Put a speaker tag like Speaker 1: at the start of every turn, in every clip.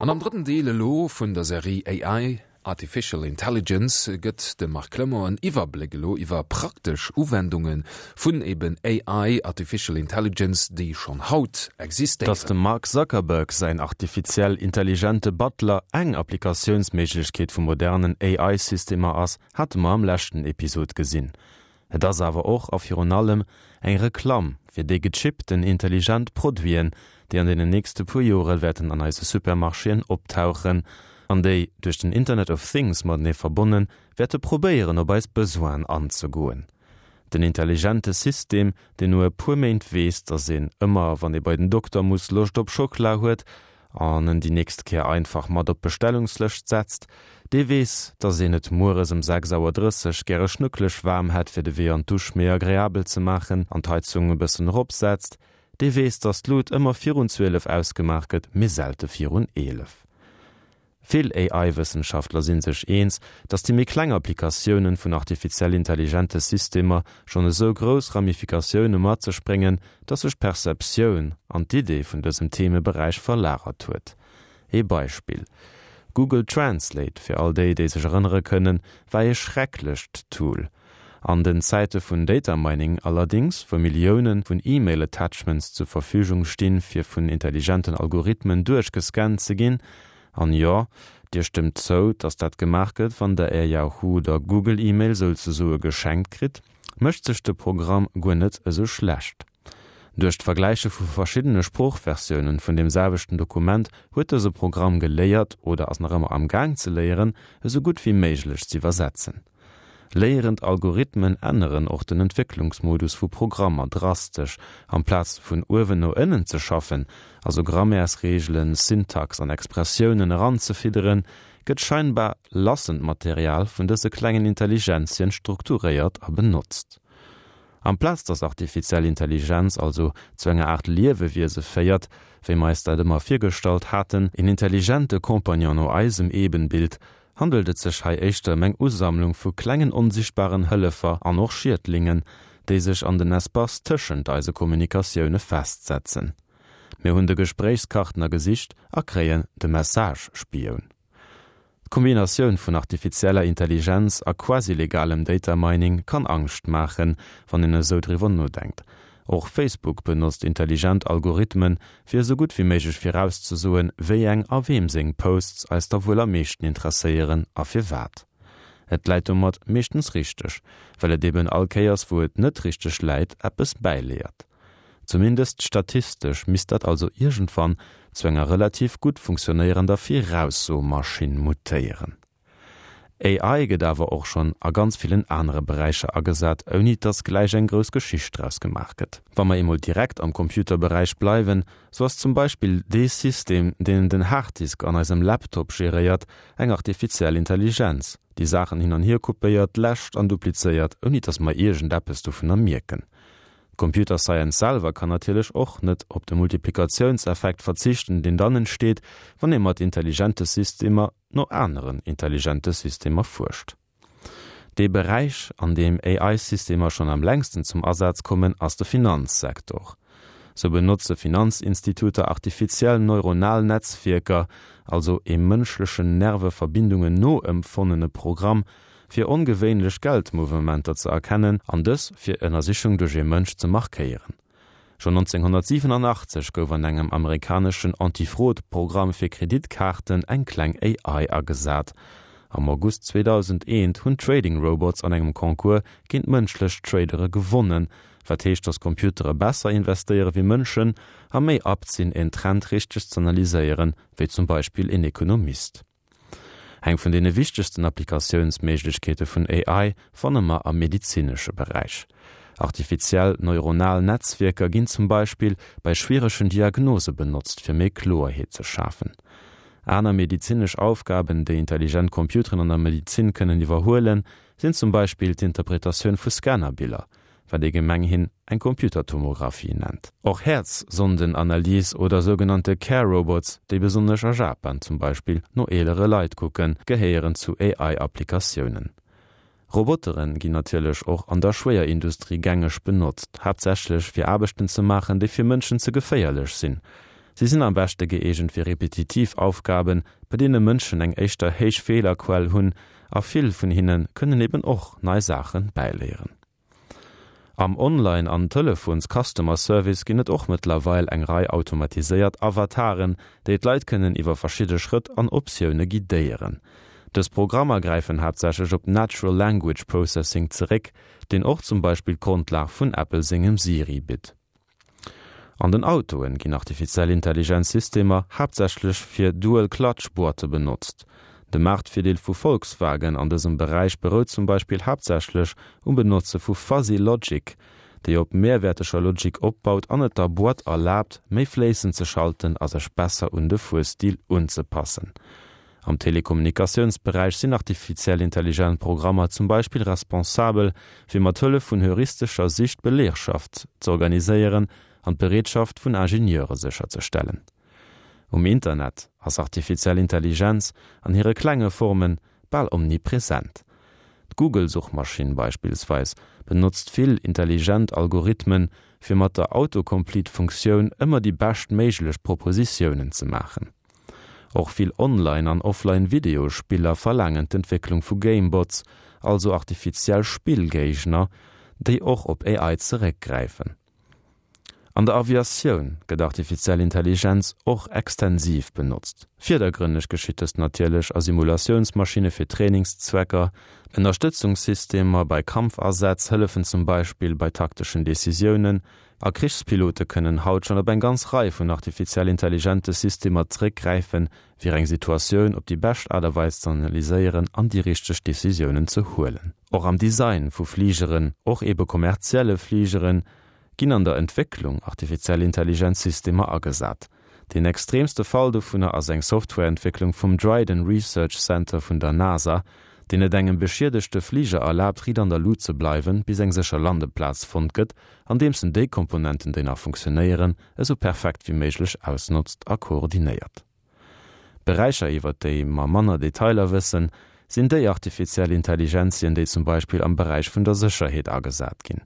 Speaker 1: An am drëtten Deel elo vun der Serie AI, Artificial Intelligence, gëtt de Marc Clement en Iwwerbléck elo iwwer praktesch Uwendunge vun eben AI, Artificial Intelligence, déi schonn haut
Speaker 2: Dass
Speaker 1: existéieren.
Speaker 2: dem Mark Zuckerberg säin artifiziell intelligente Butler eng Applikatiounsméiglechkeet vu modernen AI-Systemer ass, hate mer am leschten Episod gesinn. Et ass awer och a virun allem eng Reklamm fir déi gechippten intelligent Produiten, déi an deenen nächste puer Jore wäerten an eise Supermarchéen optauchen an déi, duerch den Internet of Things matenee verbonnen, wäerte probéieren op eis Besoinen anzegoen. Den intelligente System, deen no e puer Méint weess, dass een ëmmer wann ee bei den Dokter muss Loscht op Schockela huet, an en déi nächst Kéier einfach mat op d'Bestellungslëscht setzt, dee weess, dass een et mueres ëm 6 Auer 30 gäre schnuckeleg waarm hätt, fir de Wee an d'Dusch méi agreabel ze maachen an d'Heizung e bëssen eropsetzt, dee weess, dass d'Lut ëmmer virun 12 ausgemaach gëtt, mee selte virun 11. Vill AI-Wëssenschaftler si sech eens, datt déi méi kleng Applikatiounen vun artifiziell intelligente Systemer schonn esou grouss Ramifikatioune mat sech bréngen, datt sech d'Perceptioun an d'Idee vun dësem Themeberäich verlagert huet. Ee Beispill, Google Translate, fir all déi, déi sech erënnere kënnen, war ee schrecklecht Tool. An den Zäite vun Data Mining allerdings, wou Millioune vun E-Mail-Attachments zur Verfügung stinn, fir vun intelligenten Algorithmen duerchgescannt ze ginn, an jo, Dir stëmmt zou, dass dat gemaach gëtt, wann Der Är Yahoo oder Google-E-Mail souzesoe geschenkt kritt, mécht sech de Programm guer net esou schlecht. Duerch d'Vergläiche vu verschiddene Sproochversiounen vun deem selwechten Dokument huet dëse Programm geléiert, oder ass nach ëmmer amgaang ze léieren, esou gutt wéi méiglech z'iwwersetzen. Léierend Algorithmen änneren och den Entwécklungsmodus vu Programmer drastesch, Amplaz vun uewen no ënnen ze schaffen, also Grammaires-Reegelen, Syntax an Expressiounen eranzefidderen, gëtt scheinbar lassend Material vun dëse klengen Intelligenzien strukturéiert a benotzt. Amplaz dass artifiziell Intelligenz also zu enger Aart Liewewiese féiert, wéi mer eis dat ëmmer virgestallt haten, een intelligente Compagnon no eisem Ebenbild, handelt et sech hei éischter ëm eng Usammlung vu klengen onsichtbaren Hëllefer an och Schiedlingen, déi sech an den Espace tëschent eise Kommunikatioune festsetzen. Mir hunn de Gespréichskartner gesicht a kréien de Message-Spioun. D'Kombinatioun vun artifizieller Intelligenz a quasi-legalem Data Mining kann Angscht maachen, wann een esou driwwer nodenkt. Och Facebook benotzt intelligent Algorithmen, fir esou gutt wéi méiglech virauszesoen, wéi eng a weem seng Posts eis da wuel am meeschten interesséieren a firwat. Et läit domat meeschtens richteg, well et eben all Kéiers wou et net richteg läit, eppes bäiléiert. Zumindest statistesch misst dat also iergendwann zu enger relativ gutt funktionéierender Viraussomaschinn mutéieren. AI gëtt awer och schonn a ganz villen anere Beräicher agesat, ouni dass gläich eng grouss Geschicht draus gemaach gëtt. Wa mer eemol direkt am Computerberäich bleiwen, sou ass zum Beispill dee System, deen den Harddisk an eisem Laptop geréiert, eng artifiziell Intelligenz, déi Saachen hin an hier kopéiert, läscht an duplizéiert, ouni dass mer iergendeppes dovunner mierken. D'Computer Science selwer kann natierlech och net op de Multiplikatiounseffekt verzichten, deen dann entsteet, wann ee mat intelligente Systemer no aneren intelligente Systemer fuerscht. Dee Beräich, an deem AI-Systemer schonn am längsten zum Asaz kommen, ass de Finanzsektor. Sou benotze Finanzinstituter artifiziell neuronal Netzwierker, also ee mënschlechen Nerveverbindungen noempfonnene Programm, fir ongewéinlech Geldmouvementer ze erkennen an dës fir Ënnersichung duerch ee Mënsch ze markéieren. Schonn 1987 gouf an engem amerikaneschen Anti-Fraude-Programm fir Kreditkaarten eng kleng AI agesat. Am August 2001 hunn Trading Robots an engem Concours géint mënschlech Tradere gewonnen, wat heescht, datt Computere besser investéiere wéi Mënschen a méi apt sinn, en Trend richteg z'analyséieren, wéi zum Beispill een Ekonomist. Eng vun deene wichtegsten Applikatiounsméiglechkeete vun AI fanne mer am medezinesche Beräich. Artifiziell neuronal Netzwierker ginn zum Beispill bei schwieregen Diagnose benotzt, fir méi Kloerheet ze schafen. Aner medezinesch Aufgaben, déi intelligent Computeren an der Medezin kënnen iwwerhuelen, sinn zum Beispill d'Interpretatioun vu Scannerbiller, wat ee gemenghin eng Computertomographie nennt. Och Häerzsondenanalys oder sougenannte Care Robots, déi besonnesch a Japan zum Beispill no eelere Leit kucken, gehéieren zu AI-Applikatiounen. Robotere ginn natierlech och an der Schwéierindustrie gängeg benotzt, haaptsächlech fir Aarbechten ze maachen, déi fir Mënschen ze geféierlech sinn. Si sinn am beschte gëeegent fir repetitiv Aufgaben, bei deene Mënschen eng éischter héich Feelerquell hunn, a vill vun hinne kënnen eben och nei Saache bäiléieren. Am Online an Telefons-Customer Service ginn et och mëttlerweil eng Rei automatiséiert Avataren, déi d'Leit kënnen iwwer verschidde Schrëtt an Optioune guidéieren. Dës Programmer gräifen haaptsächlech op Natural Language Processing zeréck, deen och zum Beispill d'Grondlag vun Apple sengem Siri bitt. An den Autoen ginn artifiziell Intelligenz Systemer haaptsächlech fir Dual Clutch Boîte benotzt. De Maartvirdeel vu Volkswagen an dësem Beräich berout zum Beispill haaptsächlech um Benotze vu Fuzzy Logic, déi op mehrwäerteger Logik opbaut an et der Boîte erlaabt, méi fléissend ze schalten a sech besser un de Fuerstil unzepassen. Am Telekommunikatiounsberäich sinn artifiziell intelligent Programmer zum Beispill responsabel, fir mat Hëllef vun heuristescher Sich d'Belegschaft z'organiséieren an d'Bereetschaft vun Ingenieure sécherzestellen. Um Internet ass artifiziell Intelligenz an hire klenge Forme bal omnipresent. D'Google-Suchmaschinn beispillsweis benotzt vill intelligent Algorithmen, fir mat der Autocomplete-Funktioun ëmmer déi bescht méiglech Propositiounen ze maachen. Och vill Online an Offline Videospiller verlaangen d'Entwécklung vu Gamebots, also artifiziell Spillgéigner, déi och op AI zeréckgräifen. An der Aviatioun gëtt artifiziell Intelligenz och extensiv benotzt. Virdergrënneg geschitt dëst natierlech a Simulatiounsmaschinne fir Trainingszwecker. Ënnerstëtzungssystemer bei Kampfasätz hëllefen zum Beispill bei takteschen Decisiounen, A Krichspilote kënnen haut schonn op eng ganz Rei vun artifiziell intelligente Systemer zeréckgräifen, fir eng Situatioun op déi bescht Aart a Weis ze analyséieren an déi richteg Decisiounen ze huelen. Och am Design vu Fligeren, och ebe kommerzielle Fligeren, ginn an der Entwécklung artifiziell intelligent Systemer agesat. Deen extreemste Fall dovunner ass eng Softwareentwécklung vum Dryden Research Center vun der NASA, deen et engem beschiedegte Fliger erlaabt, riit an der Lut ze bleiwen, bis eng sécher Landeplaz fonnt gëtt, andeems en déi Komponenten, déi nach funktionéieren, esou perfekt wéi méiglech ausnotzt a koordinéiert. Beräicher, iwwert déi mer manner Detailer wëssen, sinn déi artifiziell Intelligenzien, déi zum Beispill am Beräich vun der Sécherheet agesat ginn.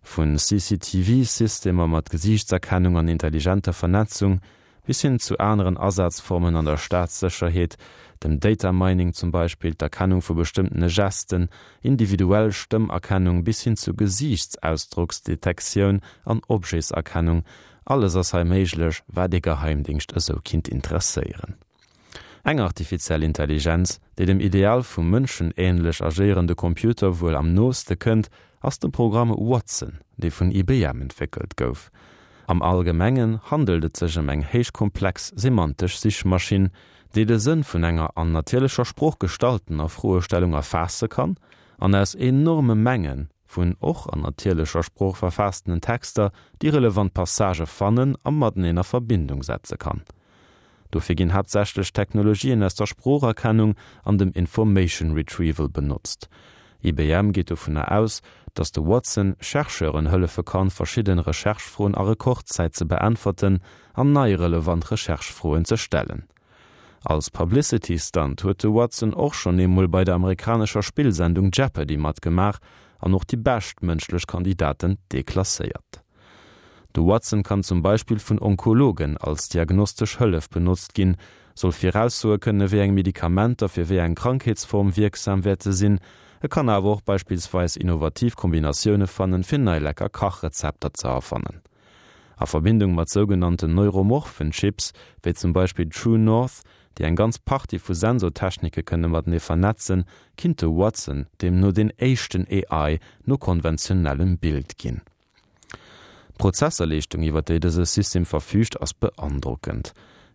Speaker 2: Vu CCTV-Systemer mat Gesiichtserkennung an intelligenter Vernetzung bis hin zu aneren Asazformen an der Staatssécherheet, dem Data Mining zum Beispill, d'Erkennung vu bestëmmtene Gesten, individuell Stëmmerkennung bis hin zu Gesiichtsausdrocksdetektioun an Objetserkennung, alles ass hei méiglech, wat ee Geheimdingscht esou kinnt interesséieren. Eng artifiziell Intelligenz, déi dem Ideal vum mënschenähnlech agéierende Computer wuel am nooste kënnt, ass de Programm Watson, dee vun IBM entwéckelt gouf. Am Allgemengen handelt et sech ëm eng héichkomplex semantesch Sichmaschinn, déi de Sënn vun enger an natierlecher Sprooch gestalltener Froestellung erfaasse kann an aus enorme Menge vun och an natierlecher Sprooch verfaassenen Texter déi relevant Passagë fannen a mateneen a Verbindung setze kann. Dofir ginn haaptsächlech Technologien aus der Sproocherkennung an dem Information Retrieval benotzt. IBM geet dovunner aus, datt de Watson Chercheuren hëllefe kann, verschidden Recherche-Froen a Rekordzäit ze beäntwerten an nei relevant Recherche-Froen ze stellen. Als Publicity-Stunt huet de Watson och schonn eemol bei der amerikanescher Spillsendung Jeopardy matgemaach an och déi bescht mënschlech Kandidaten deklasséiert. De Watson kann zum Beispill vun Onkologen als diagnostesch Hëllef benotzt ginn, soll viraussoe kënne wéi eng Medikamenter fir wéi eng Krankheetsform wierksam wäerte sinn. E kann awer och beispillsweis innovativ Kombinatioune fannen, fir nei lecker Kachrezepter ze erfannen. A Verbindung mat sougenannten neuromorphen Chips, wéi zum Beispill True North, déi eng ganz Partie vu Sensortechnike kënne matenee vernetzen, kinnt de Watson deemno deen éischten AI no konventionellem Bild ginn. D'Prozesserleeschtung, iwwer déi dëse System verfüügt, ass beandrockend.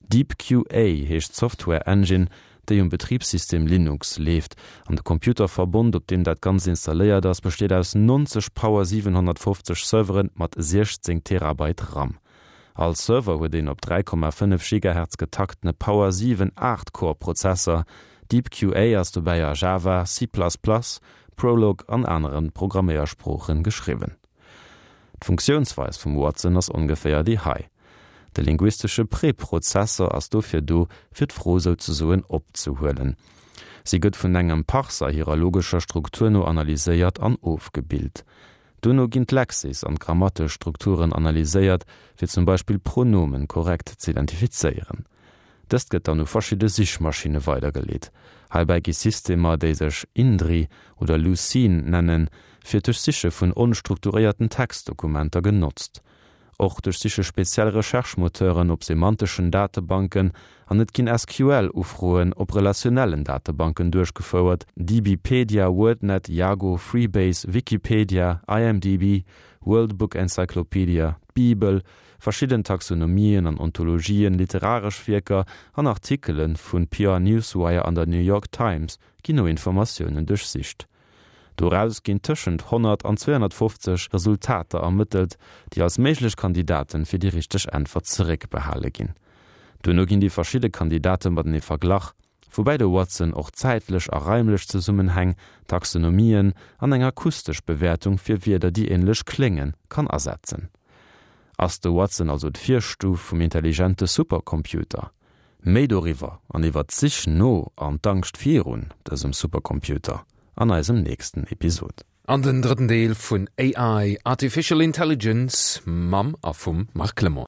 Speaker 2: DeepQA heescht d'Software-Engine, déi um Betribssystem Linux leeft. An de Computerverbond, op deem dat Ganzt installéiert ass, besteet aus 90 Power 750 Servere mat 16 Terabyte RAM. All Server huet een op 3,5 Gigahertz getaktene Power 7 Aacht-Core-Prozesser. DeepQA ass dobäi a Java, C++, Prolog an anere Programméiersproochen geschriwwen. D'Funktiounsweis vum Watson ass ongeféier déi hei, De linguistesche Preprozessor ass dofir do, fir d'Fro souzesoen opzehuelen. Si gëtt vun engem Parser hirer logescher Struktur no analyséiert an ofgebilt. Dono ginn d'Lexis an d'grammatesch Strukturen analyséiert, fir zum Beispill Pronomen korrekt z'identifizéieren. Dëst gëtt dann u verschidde Sichmaschinne weidergeleet. Heibäi gi Systemer, déi sech Indri oder Lucene nennen, fir d'Duerchsiche vun onstrukturéierten Textdokumenter genotzt. Och duerchsiche speziell Recherche-Moteuren op semanteschen Datebanken an et ginn SQL-Ufroen op relationellen Datebanken duerchgefouert, DBpedia, WordNet, Yago, Freebase, Wikipedia, IMDb, World Book Encyclopedia, d'Bibel, verschidden Taxonomien an Ontologien, literaresch Wierker an Artikele vu PR Newswire an der New York Times ginn no Informatiounen duerchsicht. Doraus ginn tëschent 100 an 250 Resultater ermëttelt, déi als méiglech Kandidaten fir déi richteg Äntwert zeréckbehale ginn. Duerno ginn déi verschidde Kandidate matenee verglach, woubäi de Watson och zäitlech a raimlech Zesummenhäng, Taxonomien an eng akustesch Bewäertung fir Wierder, déi änlech kléngen, kann asetzen. Ass de Watson also d'Virstuf vum intelligente Supercomputer? Méi doriwwer an iwwer d'Sich no an d'Angscht virun dësem Supercomputer an eisem nächsten Episod.
Speaker 1: An den drëtten Deel vun AI, Artificial Intelligence, mam a vum Marc Clement.